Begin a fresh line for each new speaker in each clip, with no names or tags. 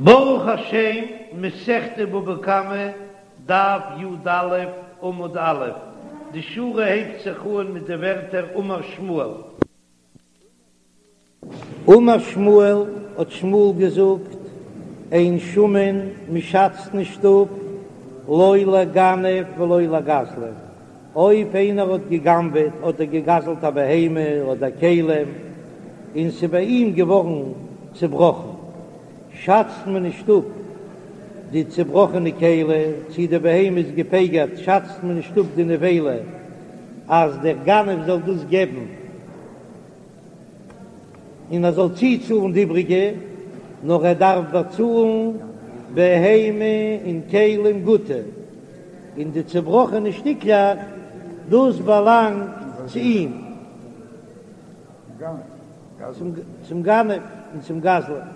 ברוך השם, מסכת בבא קמא, דף י"א, עמוד א', די שורה הייבט זיך אן מיט די ווערטער אמר שמואל.
אמר שמואל, האט שמואל געזאגט, אין שמין, מ'שאצט נישט אפ, לא לגנב ולא לגזלן, אויב איינער האט גע'גנב'עט אדער גע'גזל'ט א בהמה אדער כלים, און ס'איז ביי אים געווארן צעבראכן, שאצט מען נישט אפ די צעבראכענע כלי, צי די בהמה איז געפגר'ט, שאצט מען נישט אפ די נבילה אז דער גנב זאל דאס געבן. און ער זאל צוצאלן די איבריגע, נאר ער דארף באצאלן בהמה און כלים גוטע, און די צעבראכענע שטיקלעך, דאס באלאנגט צו אים, צום גנב און צום גזלן.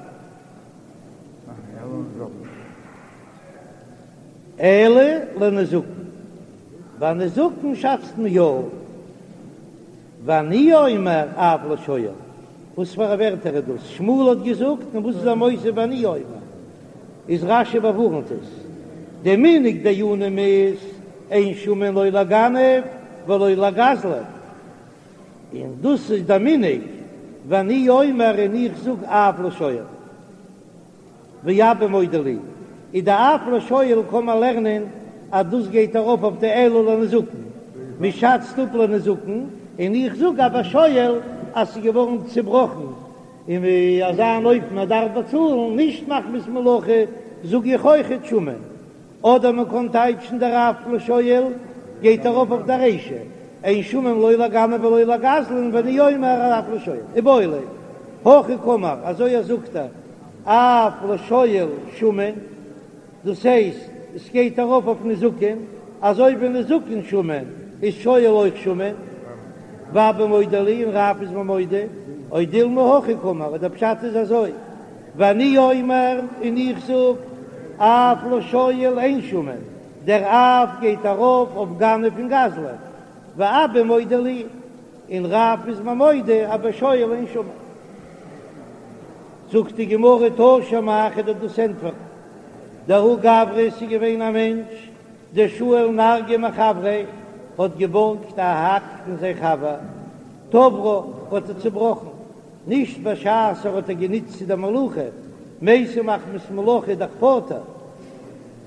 אלא לנזקין, ביי נזקין שאצט מען יא. ואני אומר אף לשואל, וואס פאר א ווערטער איז דאס? שמואל האט געזאגט און וואס איז ער מוסיף ואני אומר? איז רש"י באווארנט עס, די מנהג דיינים איז אין שמין לא לגנב ולא לגזלן, און דאס איז די מנהג, ואני אומר און איך זאג אף לשואל. ואבא מודה לי, איז די אף לשואל קען מען לערנען אז דאס גייט ארויף אויף די אלא לנזקין, מען שאצט אפ לנזקין, און איך זאג אז ביי שואל אז ס'איז געווארן צובראכן און אזא אן אופן ער דארף באצאלן, נישט מחמת מלאכה, זאג איך אויכעט שמין. אדער מען קען טייטשן דער אף לשואל גייט ארויף אויף די רישא, אין שמין לא לגנב ולא לגזלן ואני אומר אף לשואל, איבעיא להו, הכי קאמר, אזוי ער זאגט ער, אף לשואל שמין, דאס הייסט עס גייט ארויף אויף נזקין, אזוי ווי נזקין שמין איז שואל אויך שמין, ואבא מודה לי און רב איז מיר מודה, או דילמא הכי קאמר, אדער פשט איז אזוי. ואני אומר, און איך זאג, אף לשואל אין שמין, דער אף גייט ארויף אויף גנב און גזלן, ואבא מודה לי, און רב איז מיר מודה אז בשואל אין שמין. זאגט די גמרא תא שמע, כ'וועל דיר דאס ענטפערן, דההוא גברא ס'איז געווען א מענטש דשאיל נרגא מחבריה האט געבארגט א האק פון זיין חבר, תברה האט ער צובראכן, נישט בשעת ער האט איר גענוצט צו דער מלאכה, מתה מחמת מלאכה איז דאך פטור,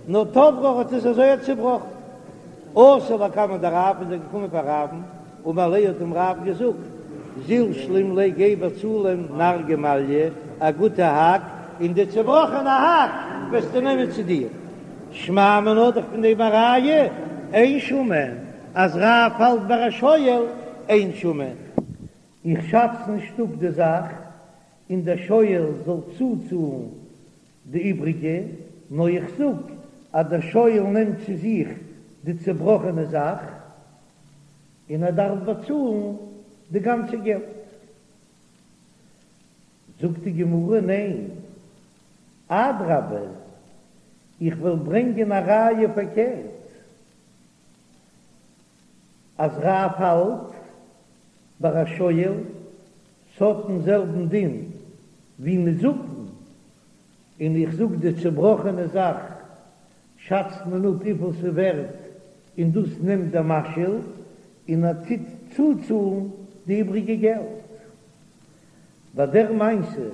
נאר תברה האט עס אזוי צובראכן. אתא לקמיה דרב איז ער געקומען פאר רב'ן, אמר ליה האט אים רב געזאגט, זיל שלים ליה גיי באצאל אים נרגא מעליא, א גוטע האק, און די צובראכענע האק וועסטו נעמען צו דיר. שמע מינה דאך פון דעם א ראיה, אין שמין, אז רב האלט ביי א שואל אין שמין. איך שאץ נישט אפ די זאך און דער שואל זאל צוצאלן די איבריגע, נאר איך זאג אז דער שואל נעמט צו זיך די צעבראכענע זאך און ער דארף באצאלן די גאנצע געלט. זאגט די גמרא, ניין, אדרבה, איך וועל ברענגען א ראיה פארקערט, אז רב האלט ביי א שואל ס'האט דעם זעלבן דין ווי נזקין, און איך זאג די צובראכענע זאך שאצט מען אפ וויפיל ס'ווערט און דאס נעמט דער משאיל און ער טוט צוצאלן די איבריגע געלט. ביי דער מעשה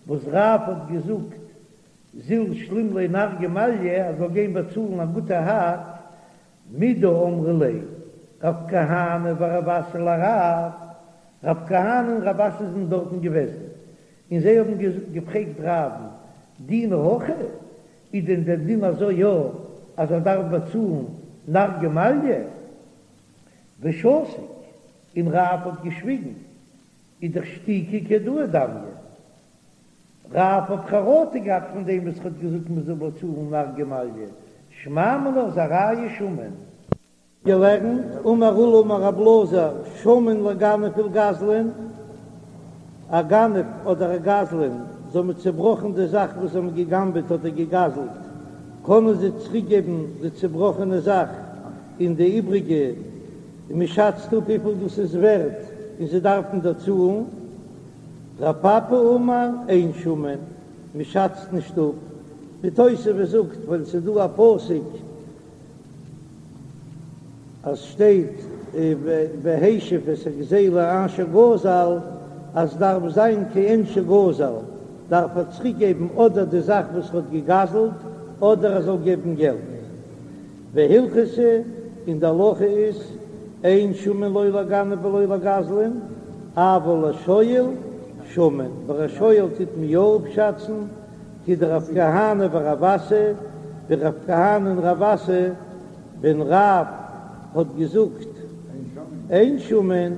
וואס רב האט געזאגט זיל שלים ליה נרגא מעליא ער זאל גיין באצאלן א גוטע האק מדאמרי ליה רב כהנא ורב אסי לרב, רב כהנא און רב אסי זענען דארטן געוועזן, און זיי האבן געפרעגט רב'ן, דינא הכי, איז דען דער דין אזוי יא אז ער דארף באצאלן נרגא מעליא? ושתיק, און רב האט געשוויגן, איז דאך שתיקה כהודאה דמיא. רב האט חרטה געהאט פון דעם וואס ער האט געזאגט מען זאל באצאלן נרגא מעליא, שמע מינה איז א ראיה שמין. געלערנט, אמר עולא אמר רב אלעזר, שמין לגנב ולגזלן, א גנב אדער א גזלן, זיי האבן צעבראכן די זאך וואס זיי האבן געגנבעט אדער געגזלט, קענען זיי צוריקגעבן די צעבראכענע זאך און די איבריגע, און מען שאצט אפ וויפיל דאס איז ווערט און זיי דארפן דערצאלן. רב פפא אמר אין שמין, מען שאצט נישט אפ. די תוספות זאגט ווייל ס'איז דא א פסוק אז שטייט והשיב את הגזילה אשר גזל אז דארף זיין כעין שגזל דארף ער צוריק געבן אדער די זאך וואס ער האט געגזלט אדער ער זאל געבן געלט. והלכתא, און די הלכה איז, אין שמין לא לגנב ולא לגזלן, אבל לשואל שמין, ביי א שואל טוט מען יא אפשאצן, כדרב כהנא ורב אסי, ווי רב כהנא און רב אסי, ווען רב האט געזאגט אין שמין,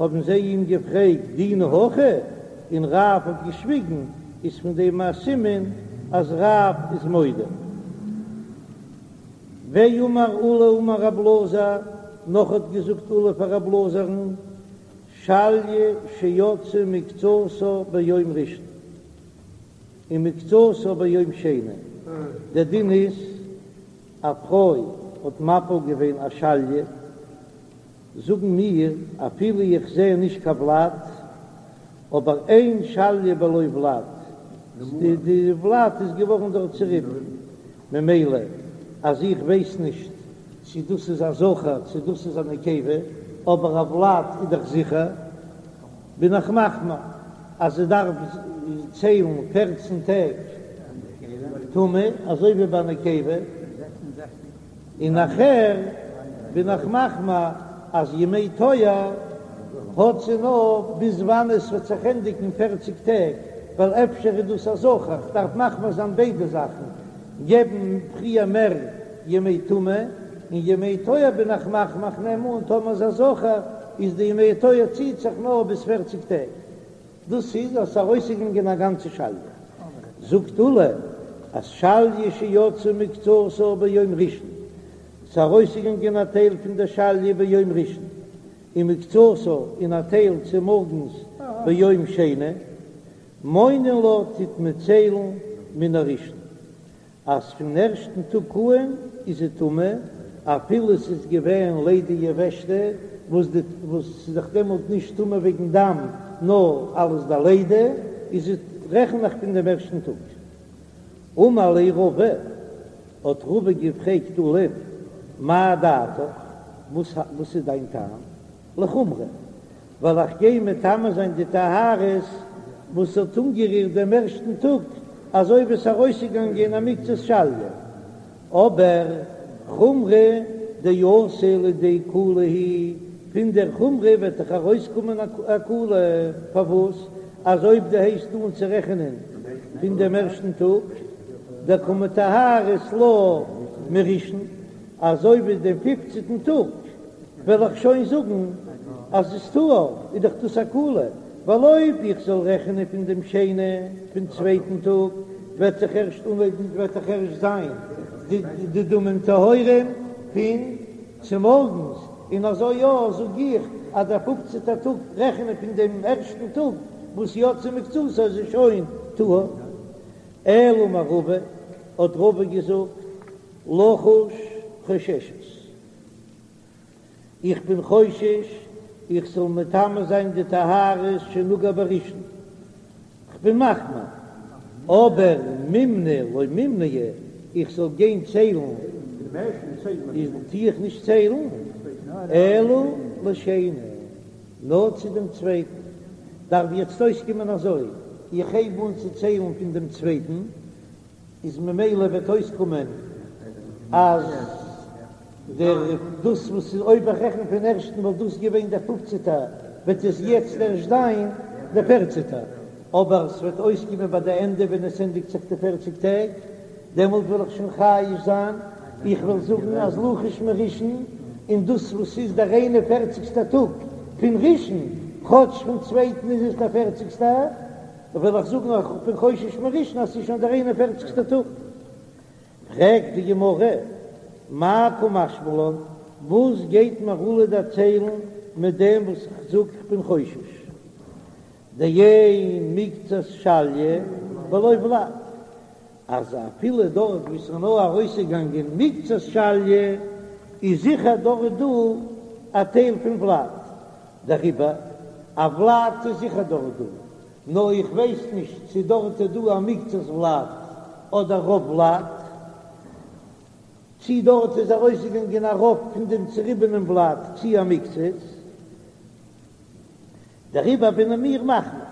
האבן זיי אים געפרעגט דינא הכי, און רב האט געשוויגן, איז פון דעם א סימן אז רב איז מודה. ואמר עולא אמר רב אלעזר, נאך האט געזאגט עולא פאר רב אלעזר'ן, שליא שיצאה מקצתה ביום ראשון ומקצתה ביום שני, דער דין איז א פרוי האט מפיל געווען א שליא, זאגן מיר אפילו איך זע נישט קיין ולד, אבער אין שליא בלא ולד, די ולד איז געווארן דארט צוריבן, ממילא אז איך ווייס נישט צו דאס איז א זכר צו דאס איז א נקבה, אבער א ולד איז דאך זיכער, בין איך מחמיר אז זי דארף ציילן פערצן טעג טומאה אזוי ווי ביי נקבה, און נאכער בין איך מחמיר אז ימי טוהר האט זי נאר ביז וואנען עס וועט זיך ענדיגן פערציג טעג, ווייל אפשר איז דאס א זכר, כ'דארף מחמיר זיין ביידע זאכן, געבן פריער מער ימי טומאה, און ימי טוהר בין איך מחמיר, כ'נעם אן טאמער איז א זכר איז די ימי טוהר ציט זיך נאר ביז פערציג טעג. דאס איז אז ס'איז ארויסגעגאנגען א גאנצע שליא. זאגט עולא אז שליא שיצאה מקצתה ביום ראשון, ס'איז ארויסגעגאנגען א טייל פון דער שליא ביום ראשון, ומקצתה און א טייל צומארגנס ביום שני, מונין לה טוט מען ציילן מן הראשון. אז פון ערשטן טאג אן איז זי טמא, אפילו ס'איז געווען לידה יבשתא, וואס די וואס ס'איז דאך דעמאלט נישט טמא וועגן דם, נאר אלס די לידה, איז זי רעכן איך פון דעם ערשטן טאג. אמר ליה רבא, האט רבא געפרעגט עולא'ן, מאי דעתיך, וואס וואס איז דיין טעם? לחומרא, ווייל איך גיי מטמא זיין די טהרות וואס האט אנגערירט דעם ערשטן טאג, אזוי ווי עס איז ארויסגעגאנגען א מקצת שליא, אבער חומרא דאתי לידי קולא היא, פון דער חומרא וועט דאך ארויסקומען א קולא, פארוואס? אז אויב דו הייבסט אן צו רעכענען פון דעם ערשטן טאג, דקא מטהרת לה מראשון, אזוי ווי דעם פופצנטן טאג וועל איך שוין זאגן אז עס איז טהור, איז דאך דאס א קולא, ווייל אויב איך זאל רעכענען פון דעם שני, פון צווייטן טאג, וועט זיך ערשט אנהויבן, וועט דאך ערשט זיין די דמים טהורים פון צומארגנס, און אזוי יא זאג איך אז דער פופצנטער טאג רעכענען פון דעם ערשטן טאג וואס יצאה מקצתה איז עס שוין טהור. אלא אמר רבא, האט רבא געזאגט, לחוש חוששת. איך בין חושש איך זאל מטמא זיין די טהרות שנגעה בראשון, כ'בין מחמיר, אבער מימנא לא מימנע, איך זאל גיין ציילן איז טו איך נישט ציילן, אלא לשני, נאר צו דעם צווייטן, דארף יעצט אויסקומען אזוי, איך הייב אן צו ציילן פון דעם צווייטן, איז ממילא וועט אויסקומען אז דער דאס וואס איז אויב איך רעכן פון ערשטן וואלט דאס געווען דער פופצעטער וועט עס יעצט ערשט זיין דער פערצעטער, אבער ס'וועט אויסקומען ביי די ענדע ווען עס ענדיגט זיך די פערציג טעג דעמאלט וועל איך שוין חייש זיין, איך וועל זאגן אז לחוש מראשון און דאס וואס איז דער איין און פערציגסטער טאג פון ראשון כאטש פון צווייטן איז עס דער פערציגסטער. וועל איך זאגן איך בין חושש מראשון אז ס'איז שוין דער איין און פערציגסטער טאג. פרעגט די גמרא, מאי קא משמע לן, וואס גייט מיר עולא דערציילן מיט דעם וואס איך זאג איך בין חושש דאין מקצת שליא בלא ולד, אז אפילו דארט וואו ס'איז נאר ארויסגעגאנגען מקצת שליא איז זיכער דארט דא א טייל פון ולד, דעריבער א ולד איז זיכער דארט דא, נאר איך ווייס נישט צו דארט איז דא א מקצת ולד. אדער רוב ולד, צי דארט איז ארויסגעגאנגען א רוב פון דעם צוריבענעם ולד צי א מקצת, דעריבער בין מיר מחמיר,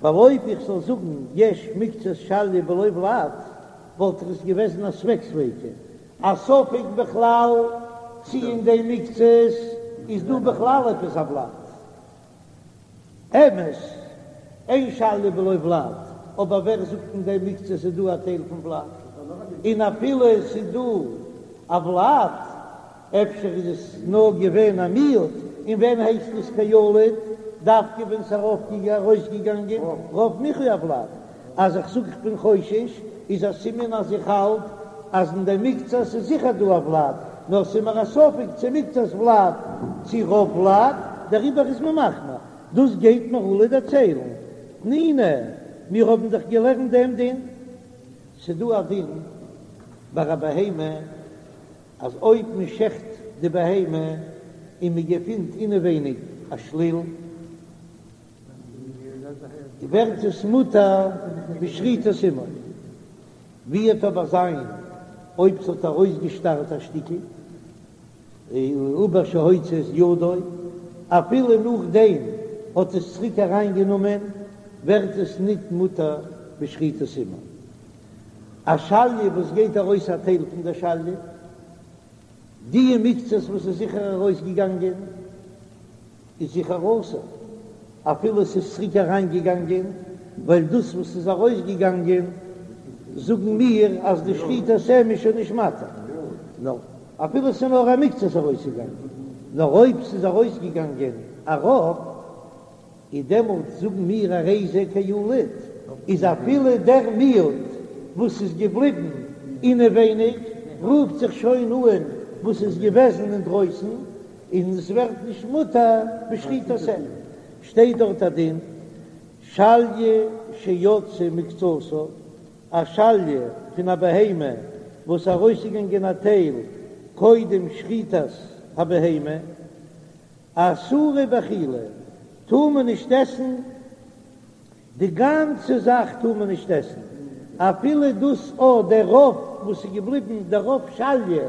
ווייל אויב איך זאל זאגן יש מקצת שליא בלא ולד, וואלט עס געוועזן א ספק ספיקא, א ספק בכלל צי אין דעם מקצת איז דא בכלל עפעס א ולד. אמת, אין שליא בלא ולד, אבער ווער זאגט אין דעם מקצת איז דא א טייל פון ולד? און אפילו עס איז דא א ולד, אפשר איז עס נאר געווען א מיעוט, און ווען הייסט עס כילוד? דווקא ווען ס'איז ארויסגעגאנגען רוב מיחוי הולד. אז איך זאג איך בין חושש, איז א סימן אז איך האלט אז אין דעם מקצת איז זיכער דא א ולד, נאר ס'איז מיר א ספק צו מקצת ולד צו רוב ולד, דעריבער איז מען מחמיר. דאס גייט מיר עולא דערציילן. תנינא, מיר האבן דאך געלערנט דעם דין. ס'דא א דין ביי א בהמה אז אויב מען שעכט די בהמה און מען געפינט אינעווייניג א שליל, ווערט עס מותר בשחיטת אמו. ווי וועט אבער זיין אויב ס'האט ארויסגעשטארט א שטיקל עובר שהוציא את ידו, אפילו נאכדעם האט עס צוריק אריינגענומען, ווערט עס ניט מותר בשחיטת אמו. א שליה וואס גייט ארויס א טייל פון דער שליה, די מקצת וואס איז זיכער ארויסגעגאנגען איז זיכער אסור, אפילו עס איז צוריק אריינגעגאנגען, ווייל דאס וואס איז ארויסגעגאנגען זאגן מיר אז די שחיטת אם איז שוין נישט מתיר, נאר אפילו עס איז נאר א מקצת ארויסגעגאנגען, נאר אויב ס'איז ארויסגעגאנגען א רוב. איז דעמאלט זאגן מיר הרי זה כילוד, איז אפילו דער מיעוט וואס איז געבליבן אינעווייניג רופט זיך שוין אן וואס איז געוועזן אינדרויסן, און עס ווערט נישט מותר בשחיטת אם. שטייט דארט א דין, שליה שיצאה מקצתה, א שליה פון א בהמה וואס ארויסגעגאנגען א טייל קודם שחיטת הבהמה, אסורה באכילה, טאר מען נישט עסן, די גאנצע זאך טאר מען נישט עסן, אפילו דאס או דער רוב וואס איז געבליבן, דער רוב שליה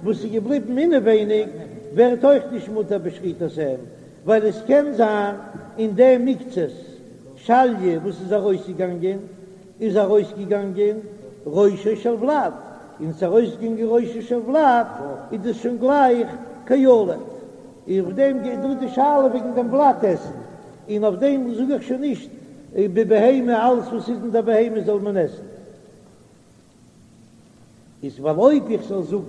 וואס איז געבליבן אינעווייניג, ווערט אויך נישט מותר בשחיטת אם, ווייל עס קען זיין אין דעם מקצת שליה וואס איז ארויסגעגאנגען, איז ארויסגעגאנגען ראשו של ולד, און ס'איז ארויסגעגאנגען ראשו של ולד איז דאס שוין גלייך כילוד, און אויף דעם גייט דא די שאלה וועגן דעם ולד עסן, און אויף דעם זאג איך שוין נישט בבהמה אלעס וואס איז אין דער בהמה זאל מען עסן. איז ווייל אויב איך זאל זאגן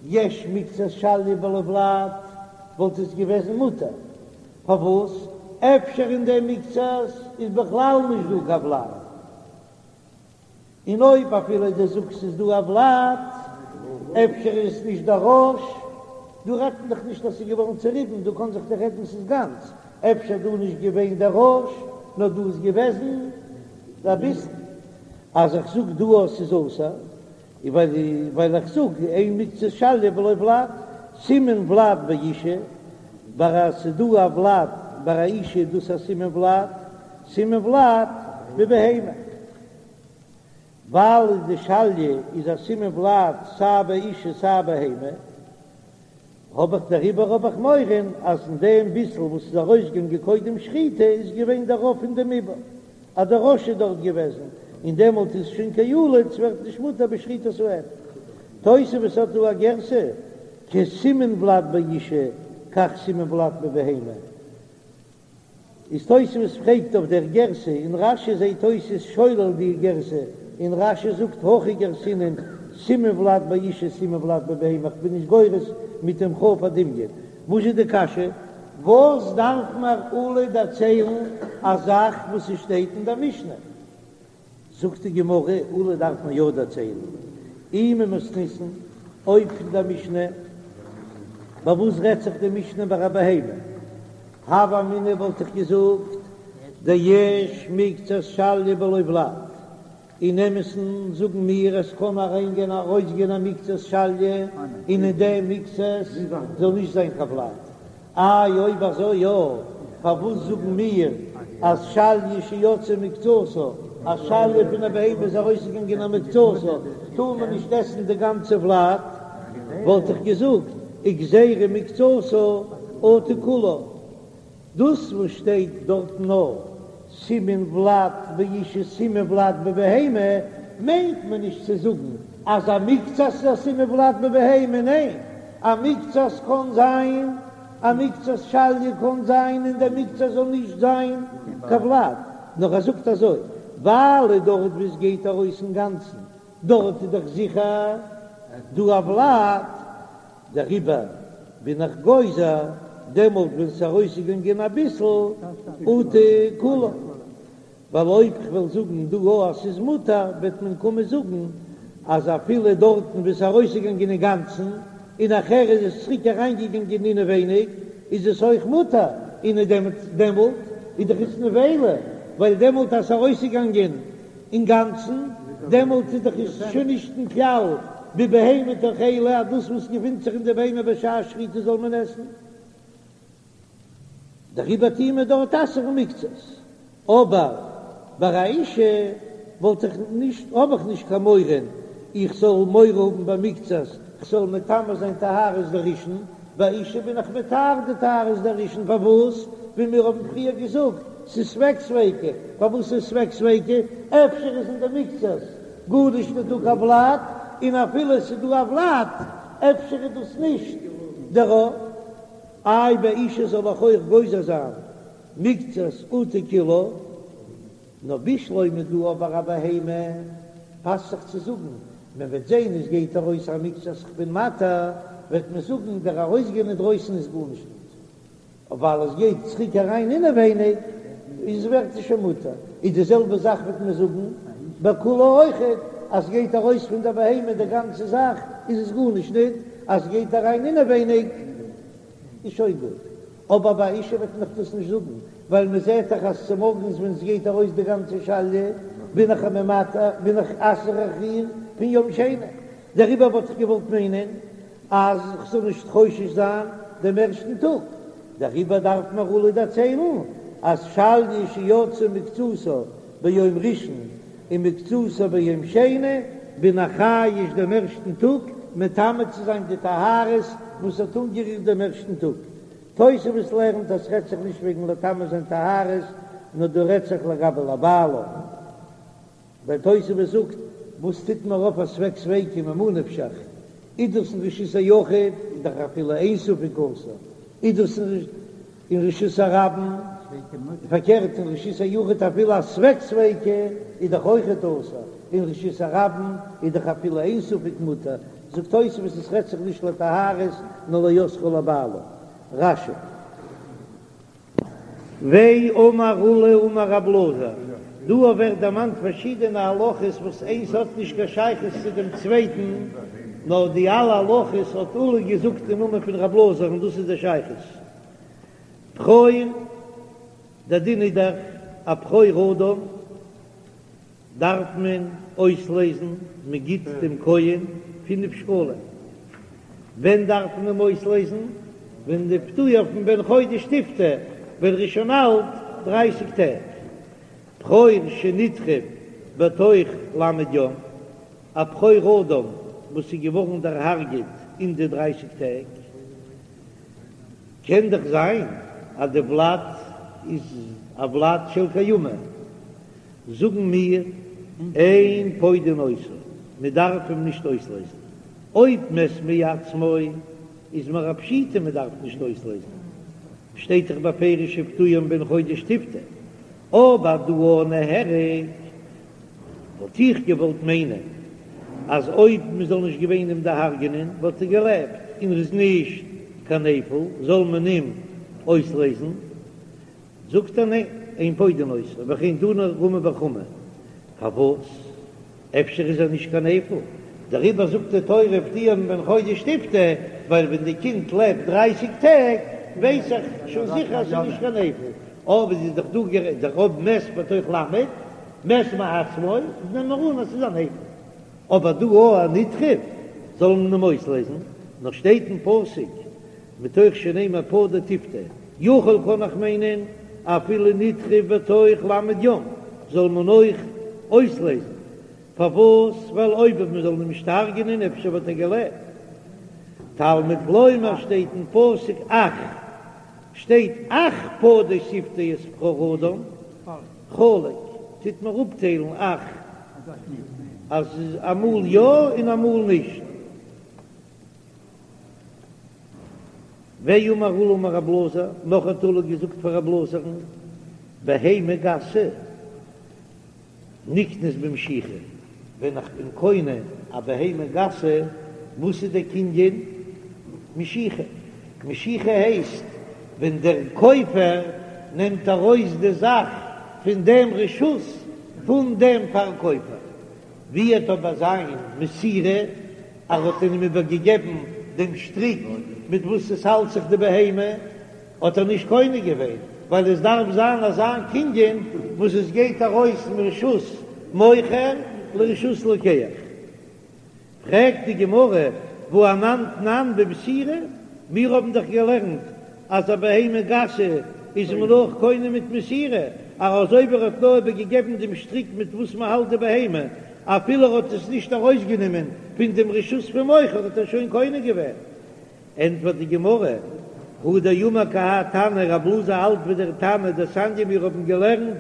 יש מקצת שליה בלא ולד וואלט עס געוועזן מותר, פארוואס אפשר אין דעם מקצת איז בכלל נישט דא קיין ולד, און אויב אפילו דו זאגסט ס'איז דא א ולד אפשר איז עס נישט דער ראש, דא רעדט מען דאך נישט אז ס'איז געווארן צוריבן, דא קען זיך דאך רעדן ס'איז גאנץ, אפשר דא נישט געווען דער ראש נאר דא איז געוועזן אביסל. אז איך זאג דא אז ס'איז אסור, איז ווייל איך זאג אין מקצת שליה בלא ולד, סימן ולד באשה, ביי א ס'איז דא א ולד ביי א אשה איז דאס א סימן ולד, סימן ולד בבהמה, ווייל די שליה איז א סימן ולד סיי ביי אשה סיי בהמה. האב איך דעריבער האב איך מורא אז אין דעם ביסל וואס איז ארויסגעגאנגען קודם שחיטה איז געווען דער רוב פון דעם עובר אז דער ראש איז דארט געוועזן און דעמאלט איז שוין כילוד ס'ווערט נישט מותר בשחיטת האם. תוספות האט דא א גירסא כסימן ולד באשה כך סימן ולד בבהמה. איז תוספות פרעגט אויף דער גירסא און רש"י זעהט אויס איז שולל די גירסא און רש"י זאגט הכי גרסינן סימן ולד באשה סימן ולד בבהמה איך בין נישט גורס מיט דעם כ"ף הדמיון. וואס איז די קשיא? וואס דארף מיר עולא דערציילן א זאך וואס עס שטייט אין דער משנה? זאגט די גמרא, עולא דארף מען יא דערציילן, אי ממתניתין, אויב פון דער משנה, ביי וואס רעדט זיך די משנה ביי א בהמה, הוה אמינא וואלט איך געזאגט, דיש מקצת שליה בלא ולד, אין אמת'ן זאגן מיר עס קען אריינגיין ארויסגיין א מקצת שליה און אין דעם מקצת זאל נישט זיין קיין ולד, איי אויב אזוי יא, פארוואס זאגן מיר אז שליה שיצאה מקצתה. א שליה פון א בהמה איז ארויסגעגאנגען א מקצתה, טאר מען נישט עסן די גאנצע ולד, וואלט איך געזאגט וגזירה מקצתה אטו כולה. דאס וואס שטייט דארט נאר סימן ולד באשה סימן ולד בבהמה, מיינט מען נישט צו זאגן אז א מקצת איז א סימן ולד בבהמה, ניין, א מקצת קען זיין, א מקצת שליה קען זיין און דער מקצת זאל נישט זיין קיין ולד, נאר ער זאגט אזוי, ווייל דארט וואו עס גייט ארויס אינגאנצן, דארט איז דאך זיכער דא א ולד, דעריבער בין איך גוזר דעמאלט ווען ס'איז ארויסגעגאנגען אביסל אטו כולה, ווייל אויב כ'וועל זאגן דא א אז ס'איז מותר וועט מען קומען זאגן אז אפילו דארטן וואו ס'איז ארויסגעגאנגען אינגאנצן און נאכהער איז עס צוריק אריינגעגאנגען אינעווייניג איז עס אויך מותר, און דעמאלט איז דאך עס נבילה, ווייל דעמאלט אז ס'איז ארויסגעגאנגען אינגאנצן, דעמאלט איז דאך עס שוין נישט אין כלל בבהמה תאכלו אז דאס וואס געפינט זיך אין די בהמה בשעת שחיטה זאל מען עסן, דעריבער טוען מיר דארט אסר'ן מקצת, אבער ביי א אשה וואלט איך נישט, האב איך נישט קיין מורא איך זאל מורא האבן ביי מקצת, כ'זאל מטמא זיין טהרות דראשון, ביי אשה בין איך מטהר די טהרות דראשון, פארוואס? ווי מיר האבן פריער געזאגט, ס'איז ספק ספיקא, פארוואס איז ספק ספיקא? אפשר איז אין די מקצת גארנישט נישט דא קיין ולד, און אפילו ס'איז דא א ולד, אפשר איז דאס נישט דער רוב. איי ביי אשה זאל איך אויך גוזר זיין מקצת אטו כולה? נאר בשלמא דא אבער א בהמה פאסט זיך צו זאגן, מען וועט זען עס גייט ארויס א מקצת כ'בין מתיר, וועט מען זאגן דער ארויסגיין אינדרויסן איז גארנישט ניט, ווייל עס גייט צוריק אריין אינעווייניג איז ווערט עס שוין מותר, איז די זעלבע זאך וועט מען זאגן ביי כולה אויכעט, אז ס'גייט ארויס פון דער בהמה די גאנצע זאך איז עס גארנישט ניט, אז ס'גייט אריין אינעווייניג איז שוין גוט. אבער ביי אשה וועט מען דאך דאס נישט זאגן, ווייל מען זעט דאך אז צומארגנס ווען עס גייט ארויס די גאנצע שליה בין איך ממתא בין איך אסר איך איר פון יום שני, דעריבער וואלט איך געוואלט מיינען אז כ'זאל נישט חושש זיין דעם ערשטן טאג, דעריבער דארף מיר עולא דערציילן אז שליה שיצאה מקצתה ביום ראשון ומקצתה ביום שני, בין איך חייש דעם ערשטן טאג מטמא צו זיין די טהרות וואס האט אנגערירט דעם ערשטן טאג. תוספות לערנט אז ס'רעדט זיך נישט וועגן לטמא זיין טהרות, נאר דא רעדט זיך לגבי לבעלה. ווייל תוספות זאגט, וואס טוט מיר אויף א ספק ספיקא ממה נפשך, איז דאס אין רשות היחיד איז דאך אפילו איין ספק אסור, איז דאס אין רשות הרבים, פארקערט אין רשות היחיד אפילו א ספק ספיקא איז דאך אויכעט אסור, אין רשות הרבים איז דאך אפילו איין ספק מותר, זאגט תוספות עס רעדט זיך נישט לטהרות נאר לאוסרה לבעלה. רש"י. ואמר עולא אמר רב אלעזר, דא ווערט דערמאנט פארשידענע הלכות וואס איינס האט נישט קיין שייכות צו דעם צווייטן, נאר די אלע הלכות האט עולא געזאגט אין נאמען פון רב אלעזר און דאס איז די שייכות. בכור, דער דין איז דאך א בכור אדם דארף מען אויסלעזן, מען גיט דעם כהן פינף שקלים, ווען דארף מען אים אויסלעזן? ווען ופדויו מבן חודש תפדה, ווען ער איז שוין אלט דרייסיג טעג. בכור שנטרף בתוך ל' יום, א בכור אדם וואס איז געווארן דערהארגעט אין די דרייסיג טעג, קען דאך זיין אז די ולד איז א ולד של קיימא, זאגן מיר, אין פודין אותו, מען דארף אים נישט אויסלעזן, אויב מת מעצמו איז מיר א פשיטא מען דארף נישט אויסלעזן, שטייט דאך בפירוש ופדויו מבן חודש תפדה, אבער דא נהרג וואלט איך געוואלט מיינען אז אויב מען זאל נישט געווען אים דערהרגענען וואלט ער געלעבט און ער איז נישט קיין נפל זאל מען אים אויסלעזן, זאגט ער ניין, אין פודין אותו, וכן תנא רמי בר חמא, פארוואס? אפשר איז ער נישט קיין נפל, דעריבער זאגט די תורה ופדויו מבן חודש תפדה, ווייל ווען די קינד לעבט דרייסיג טעג ווייס איך שוין זיכער אז ס'איז נישט קיין נפל, אבער איז דאך דא גערעדט דער אויב מת בתוך ל', מת מעצמו, נעמען מיר אן אז ס'איז א נפל, אבער דא א נטרף זאל מען אים אויסלעזן, נאר שטייט אין פסוק מתוך שנאמר פדה תפדה, יכול קען איך מיינען אפילו נטרף בתוך ל' יום זאל מען אויך. אויסלייזן, פארוואס? ווייל אויב מען זאל אים נישט הרג'ענען אפשר וואלט ער געלעבט. תלמוד לומר שטייט אין פסוק אך, שטייט אך פדה תפדה את בכור האדם, חלק, טוט מען אפטיילן אך, אז אמאל יא און אמאל נישט. ואמר עולא אמר רב אלעזר, נאך האט עולא געזאגט פאר רב אלעזר'ן, בהמה גסה נקנית במשיכה, ווען איך בין קונה א בהמה גסה, וואס איז דער קנין? משיכה. משיכה הייסט ווען דער קויפער נעמט ארויס די זאך פון דעם רשות פון דעם פארקויפער. ווי וועט אבער זיין מסירה, ער האט אים איבערגעגעבן דעם שטריק מיט וואס עס האלט זיך די בהמה, האט ער נישט קונה געווען, ווייל עס דארף זיין אזא קנין וואס עס גייט ארויס מרשות מוכר לרשות לוקח. פרעגט די גמרא, והא אנן תנן במסירה, מיר האבן דאך געלערנט אז א בהמה גסה איז מען אויך קונה מיט מסירה, אז אויב ער האט נאר איבערגעגעבן דעם שטריק מיט וואס מען האלט די בהמה, אפילו ער האט עס נישט ארויסגענומען פון דעם רשות פון מוכר האט ער שוין קונה געווען. ענטפערט די גמרא, הוא דאמר כי האי תנא, רב אלעזר האלט ווי דער תנא דתניא מיר האבן געלערנט,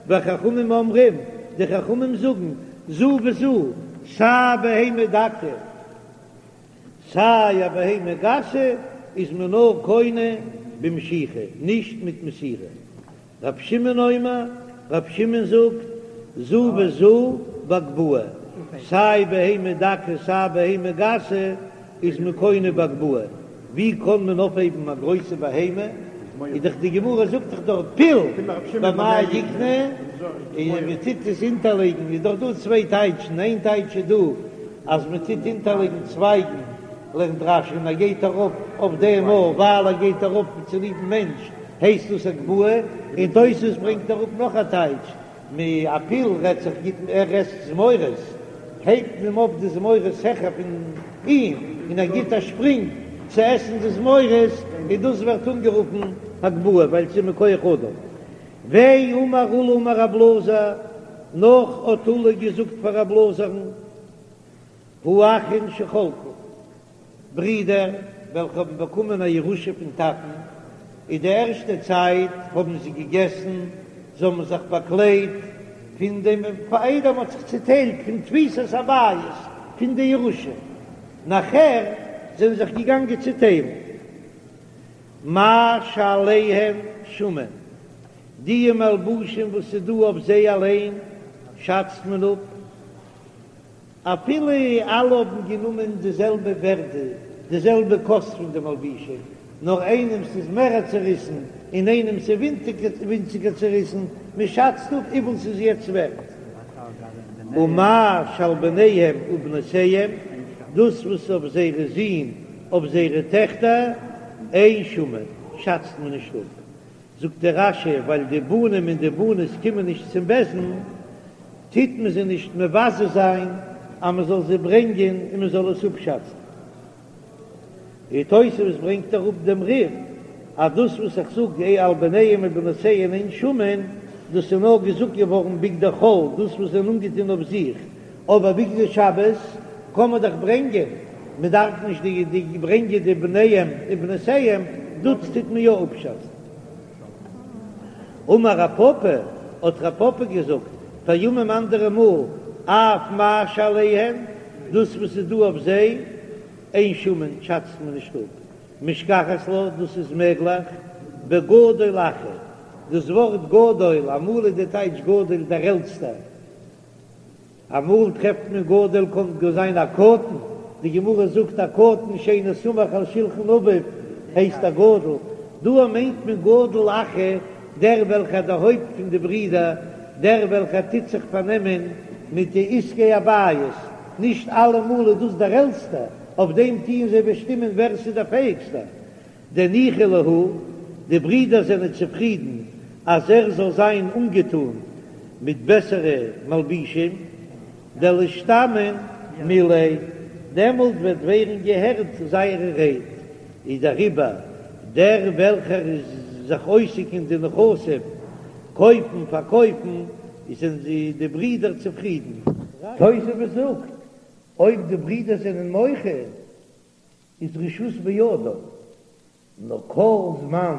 וחכמים אומרים, די חכמים זאגן, זו וזו, סיי בהמה דקה, סיי א בהמה גסה, איז מען נאר קונה במשיכה, נישט מיט מסירה. רב שמעון אומר, רב שמעון זאגט, זו וזו בהגבהה, סיי בהמה דקה סיי בהמה גסה איז מען קונה בהגבהה, ווי קען מען אויפהייבן א גרויסע בהמה, איז דאך די גמרא זאגט דאך דארט פיל במה יקנה, און מען טוט עס אונטערלייגן, איז דאך דא צוויי טייטשן, איין טייטש איז דא אז מען טוט אונטערלייגן צווייגן, לערנט רש"י און ער גייט ארויף אויף דעם אויך ווייל ער גייט ארויף צוליבן מענטש הייסט דאס הגבהה, און תוס' ברענגט אראפ נאך א טייטש, מ א פיל רעדט זיך גיט ער עסט זמורות, הייבט מען אים אויף די זמורות העכער פון אים און ער גיט א שפרינג צו עסן די זמורות, און דאס ווערט אנגערופן הגבהה ווייל ס'איז מכח אדם. ואמר עולא אמר רב אלעזר, נאך האט עולא געזאגט פאר רב אלעזר'ן, האחין שחלקו, ברידער וועלכע האבן באקומען א ירושה פון טאטן, אין די ערשטע צייט האבן זיי געגעסן, זיי האבן זיך באקליידט פון דעם פאר איידער מען האט זיך צוטיילט פון תפיסת הבית פון די ירושה, נאכער זענען זיך געגאנגען צוטיילן מה שעליהן שמין, די מלבושים וואס איז דא אויף זיי אליין שאצט מען אפ. אפילו אלע האבן גענומען די זעלבע ווערדע, די זעלבע קאסט פון די מלבישים, נאר איינעמס איז מערער צעריסן און איינעמס איז ווינציגער צעריסן, מען שאצט אפ וויפיל ס'איז יעצט ווערט. ומה שעל בניהם ובנותיהם, דאס וואס אויף זייערע זין, אויף זייערע טעכטער, אין שמין, שאצט מען נישט אפ. זאגט דער רש"י, ווייל די בנים און די בנות קומען נישט צום בית דין, טוט מען זיי נישט מבזה זיין אז מען זאל זיי ברענגען און מען זאל עס אפשאצן. און תוספות ברענגט אראפ דעם רי"ף אז דאס וואס איך זאג עה על בניהם ובנותיהם אין שמין, דאס איז נאר געזאגט געווארן בגדי חול, דאס וואס זיי זענען אנגעטון אויף זיך, אבער בגדי שבת קען מען דאך ברענגען, מען דארף נישט די די ברענגען די בניהם ובנותיהם, דאס טוט מען יא אפשאצן. אמר רב פפא, האט רב פפא געזאגט, פעמים אנדערע מאל, אף מה שעליהם, דאס וואס איז דא אויף זיי, אין שמין, שאצט מען נישט אפ, משכחת לה, דאס איז מעגליך, בגדול אחא, דאס ווארט גדול, אמאל איז די טייטש גדול דער עלטסטער, אמאל טרעפט מען גדול קען גאר זיין א קטן, די גמרא זאגט א קטן שאינו סמוך על שלחן אביו הייסט א גדול, דא מיינט מען גדול אחא דער וועלכער דער הויפט פון די ברידער, דער וועלכער טוט זיך פארנעמען מיט די עסקי הבית, נישט אלעמאל איז דאס דער עלטסטער, אויף דעם טוען זיי באשטימען ווער ס'איז דער פעהיגסטער. דניחא להו, די ברידער זענען צופרידן אז ער זאל זיין אנגעטון מיט בעסערע מלבישים, דלישתמעון מיליה, דעמאלט וועט ווערן געהערט זייערע רייד, איז דעריבער דער וועלכער איז זיך עוסק אין די נכסים, קויפן פארקויפן.
זענען די ברידער צופרידן. תוספות זאגט, אויב די ברידער זענען מוחה איז רשות בידו, נאר כל זמן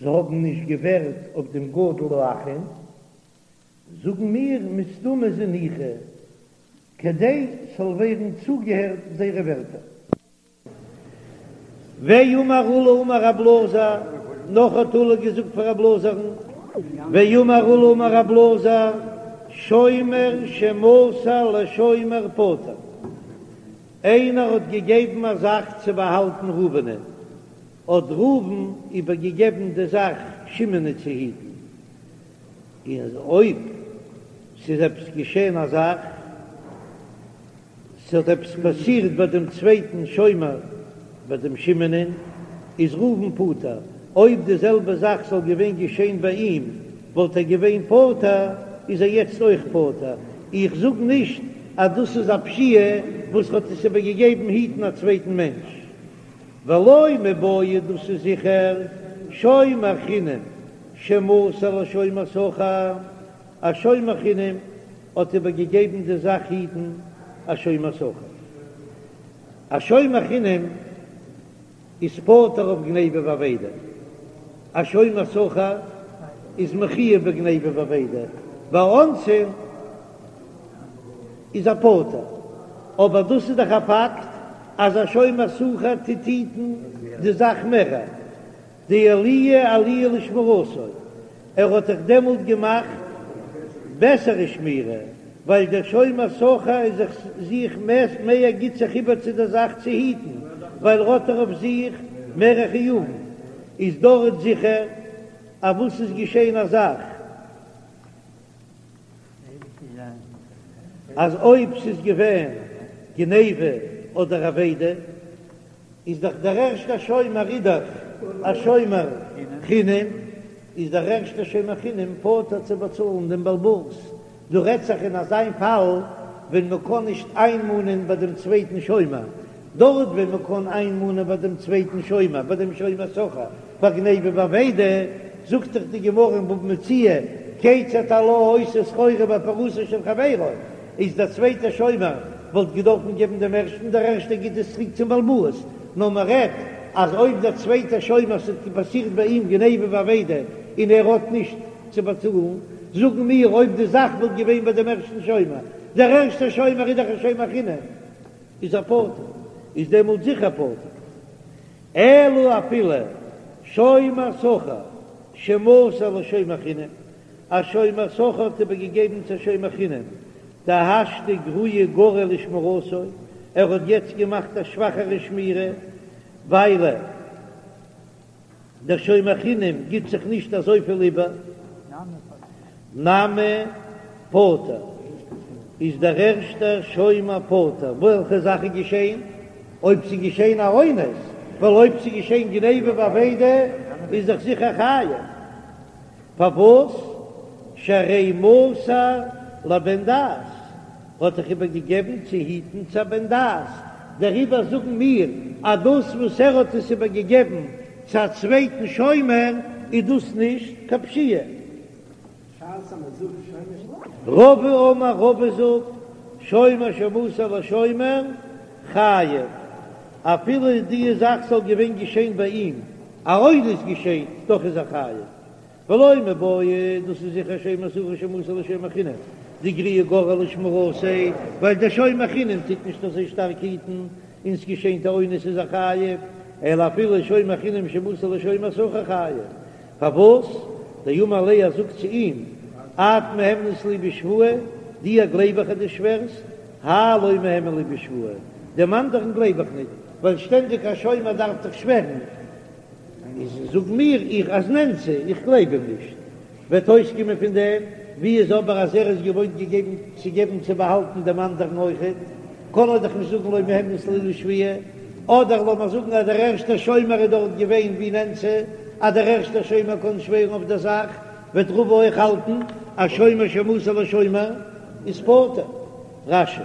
זיי האבן נישט געווערט אויף דעם גדול האחים, זאגן מיר מסתמא זניחא, כדי ס'זאל ווערן צוגעהערט זייערע ווערטער. ואמר עולא אמר רב אלעזר, נאך האט עולא געזאגט פאר רב אלעזר'ן, ואמר עולא אמר רב אלעזר, שומר שמסר לשומר פטור, איינער האט געגעבן א זאך צו באהאלטן ראובנ'ען, האט ראובן איבערגעגעבן די זאך שמעונ'ען צו היטן, און אויב ס'איז עפעס געשען א זאך, ס'האט עפעס פאסירט ביי דעם צווייטן שומר, ביי דעם שמעונ'ען, איז ראובן פטור. אויב די זעלבע זאך זאל געווען געשען ביי אים, וואלט ער געווען פטור, איז ער יעצט אויך פטור. איך זאג נישט אז דאס איז א פשיעה וואס האט עס איבערגעגעבן היטן א צווייטן מענטש. ולא מיבעיא דאס איז זיכער שומר חינם שמסר לשומר שכר, א שומר חינם האט איבער געגעבן די זאך היטן א שומר שכר. א שומר חינם איז פטור אויף גניבה ואבידה, א שומר שכר איז מחויב בגניבה ואבידה, ביי אונסין איז ער פטור, אבער דאס איז דאך א פאקט אז א שומר שכר טוט היטן די זאך מער. דעלויי עלויה לשמירתו, ער האט דאך דעמאלט געמאכט בעסערע שמירה, ווייל דער שומר שכר איז זיך זיך מער גיט זיך איבער צו דער זאך צו היטן, ווייל ער האט דאך אויף זיך מערע חיובים, איז דארט זיכער אז וואס איז געשען א זאך אז אויב ס'איז געווען גניבה אדער אבידה, איז דאך דער ערשטער שומר איז דאך א שומר חינם, איז דער ערשטער שומר חינם פטור צו באצאלן דעם בעל הבית, דא רעדט זיך אין אזיין פאל ווען מען קען נישט איינמאנען ביי דעם צווייטן שומר, דארט ווען מען קען איינמאנען ביי דעם צווייטן שומר, ביי דעם שומר שכר, ביי גניבה ואבידה, זאגט דאך די גמרא אין בבא מציעא, כיצד הלה העושה סחורה בהפרתו של חברו, איז דער צווייטער שומר וואלט געדארפן געבן דעם ערשטן, דער ערשטער גיט עס צוריק צום בעל הבית, נאר מען רעדט אז אויב דער צווייטער שומר ס'האט פאסירט ביי אים גניבה ואבידה און ער האט נישט צו באצאלן, זאגן מיר אויב די זאך וואלט געווען ביי דעם ערשטן שומר, דער ערשטער שומר איז דאך א שומר חינם, איז ער פטור, איז דעמאלט זיכער פטור. אלא אפילו שומר שכר שמסר לשומר חינם, א שומר שכר האט איבערגעגעבן צו א שומר חינם, דהשתא גרועי גרע לשמירתו, ער האט יעצט געמאכט א שוואכערע שמירה, ווייל דער שומר חינם גיט זיך נישט אזויפיל איבער, נמי פטור, איז דער ערשטער שומר פטור, וועלכע זאך איז געשען? אויב ס'איז געשען א אונס, ווייל אויב ס'איז געשען גניבה ואבידה איז דאך זיכער חייב. פארוואס שהרי מסר לבן דעת האט דאך איבער געגעבן צו היטן צו א בן דעת, דעריבער זאגן מיר אז דאס וואס ער האט עס איבער געגעבן צו א צווייטן שומר איז דאס נישט קיין פשיעה. רבא אמר רבא זאגט, שומר שמסר לשומר חייב, אפילו די זאך זאל געווען געשען ביי אים, א אונס געשען, דאך איז ער חייב. ולא מיבעיא, דאס איז זיכער שומר שכר שמסר לשומר חינם, דגרועי גרע לשמירתו, ווייל דער שומר חינם טוט נישט אזוי שטארק היטן, און ס'געשענט א אונס איז ער חייב, אלא אפילו שומר חינם שמסר לשומר שכר חייב. פארוואס? דאמר ליה ער זאגט צו אים, את מהימנת לי בשבועה, דיר גלייב איך אז דו שווערסט, האי לא מהימן לי בשבועה, דעם אנדערן גלייב איך ניט, ווייל שטענדיג א שומר דארף דאך שווערן, איז זאג מיר איך אז נאנסה, איך גלייב אים נישט, וועט אויסקומען פון דעם, ווי איז אבער אז ער איז געוואוינט געגעבן צו געבן צו באהאלטן דעם אנדערן אויכעט, קען ער דאך נישט זאגן לא מהימנת לי לשבועה, אדער לאמיר זאגן אז דער ערשטער שומר איז דארט געווען ווי נאנסה, אז דער ערשטער שומר קען שווערן אויף דער זאך, וועט רבא אויך האלטן אז שומר שמסר לשומר איז פטור. רש"י.